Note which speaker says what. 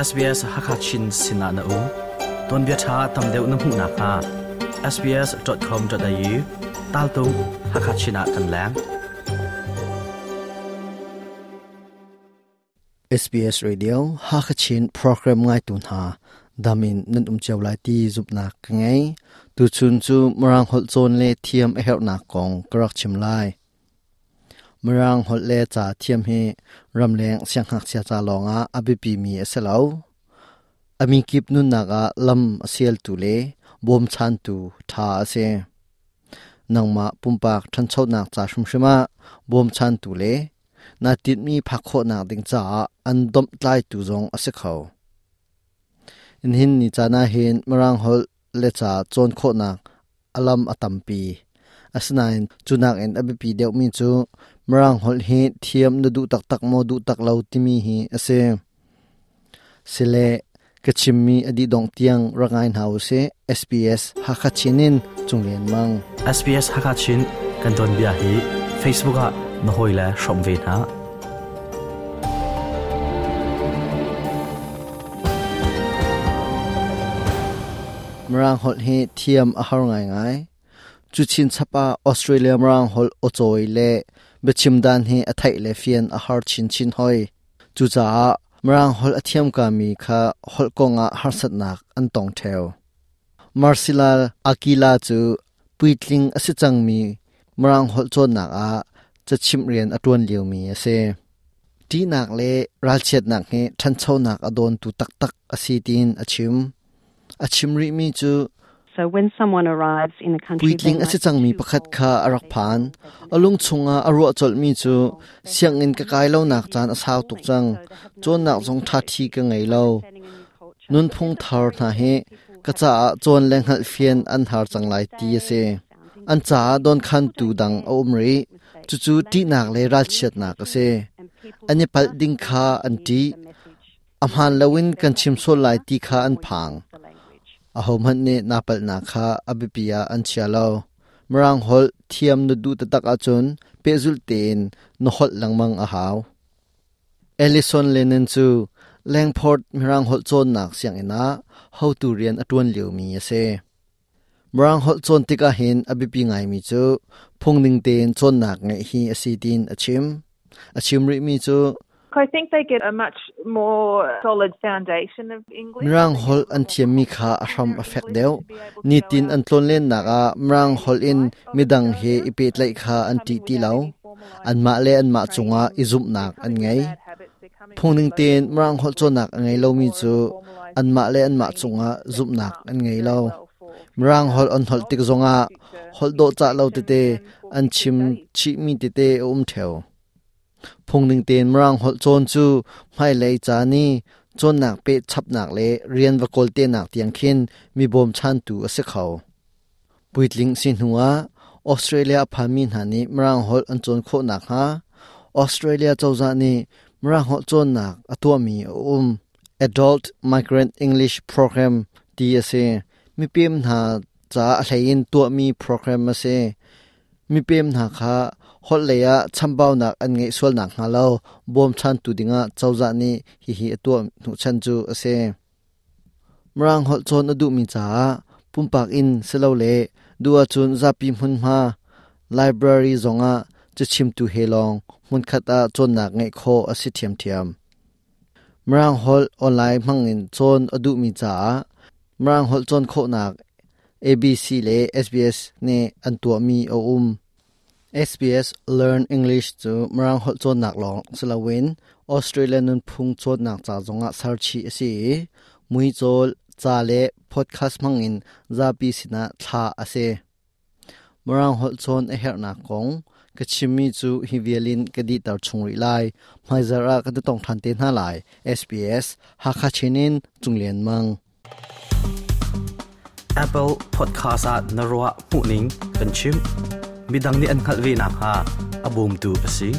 Speaker 1: SBS Hakha Chin sinah na um. Tuanbia ṭha tam deuh na hmuh nakhnga sbs.com.au taltung Hakha Chin ah kan leng.
Speaker 2: SBS Radio Hakha Chin program ngaitu hna damin nan um cio lai ti zumhnak ka ngei. Tuchun cu Mirang holh cawn le thiam a herhnak kong ka rak chim lai. Mirang holh le ca thiam hi ramleng siangngakchia ca lawngah a biapimi a si lo. A mikip nunnak ah lam a sialtu le bawmchantu ṭha a si. Nangmah pumpak ṭhanchonak ca hrimhrim ah bawmchantu le naa tinhmi phak khawhnak ding caah an domhtlaitu zong a si kho. Nihin ni caan ahhin Mirang holh le ca cawn khawhnak a lam a tampi. Asinain cu nakin a biapi deuhmi cu Mirang holh hi thiam na duh taktak maw duh tak lo timi hi a si. Sile ka chimmi a dih dongh tiang rak ngai hna usih. SBS Hakha Chin in Cung Lian Mang.
Speaker 1: SBS Hakha Chin kan tuanbia hi Facebook ah na hawile hrawmh ve hna.
Speaker 2: Mirang holh hi thiam a har ngaingai. Cu chinchap ah Australia Mirang holh awcawi le biachim dan hi a theih le fian a har chinchin hoi. Cucaah Mirang holh a thiam kami kha holh kongah harsatnak an tong ṭheo. Marcela Akila cu puitling a si cangmi Mirang holh cawnnak ah cachimh rian a ṭuan liomi a si. Ṭihnak le ralchiatnak hi ṭhanchonak a dawntu taktak a si tiin a chim. A chim rihmi cu puitling a si cangmi pakhat kha a rak phan. A lung chungah a ruah colhmi cu sianginn ka kai lonak caan a sau tuk cang. Cawnnak zong ṭhaṭhi ka ngei lo. Nunphung thar hna hi ka caah cawn le hngalhfian an har cang lai ti a si. An caah dawnkhantu dang a um rih. Cucu ṭihnak le ralchiatnak a si. An i palh ding kha an ṭih. A hmaan loin kan chim sual lai ti kha an phang. Ahohmanh nih naa palhnak kha a biapi ah an chia lo. Mirang holh thiam na duh taktak ahcun pehzulh tein na holh lengmang a hau. Ellison Lennon cu Langport Mirang holh cawnnak sianginn ah hotu rian a ṭuan liomi a si. Mirang holh cawn tikah hin a biapi ngaimi cu phungning tein cawnnak ngeih hi a si tiin a chim. A chim rihmi cu
Speaker 3: I think they get a much more solid foundation of English.
Speaker 2: Mirang holh an thiammi kha a hram a fek deuh. Nitin an tlawnlennak ah Mirang holh in midang he i pehtlaih kha an ṭih ti lo. Anmah le anmah cungah i zumhnak an ngei. Phungning tein Mirang holh cawnnak a ngei lomi cu anmah le anmah cungah zumhnak an ngei lo. Mirang holh an holh tik zongah holh dawhcah lo tete an chim chihmi tete a um ṭheo. Phungning tein Mirang holh cawn cu hmailei ca ni cawnnak peh chapnak le rian va kawltenak tiang khin mi bawmchantu a si kho. Puitling si hnuah Australia a phanmi hna nih Mirang holh an cawn khawh nakhnga Australia cozah nih Mirang holh cawnnak a tuahmi a um. Adult Migrant English Program ti a si. Mipem hna ca a hleiin tuahmi program a si. Mipem hna kha holh lei ah chambaunak an ngeih sual nakhnga lo bawmchantu dingah cozah nih hihi a tuah hnuchan cu a si. Mirang holh cawn a duhmi caah pumpak in silole duh ahcun zapi hmunhma library zongah cachimtu he lawng hmunkhat ah cawnnak ngeih khawh a si ṭhiamṭhiam. Mirang holh online hmangin cawn a duhmi caah Mirang holh cawn khawhnak ABC le SBS nih an tuahmi a um. SBS Learn English cu Mirang holh cawnnak lawng si loin Australia nunphung cawnnak ca zongah ser chih a si i muicawl, ca le podcast hmangin zapi sinah thlah a si. Mirang holh cawn a herhnak kong ka chimmi cu hi vial in ka dihter chung rih lai. Hmaizarh ah kan i tong ṭhan te hna lai. SBS Hakha Chin in Cung Lian Mang.
Speaker 1: Apple Podcast ah na ruah hmuhning kan chim. Midang nih an hngalh ve nakhnga a bawmtu a si.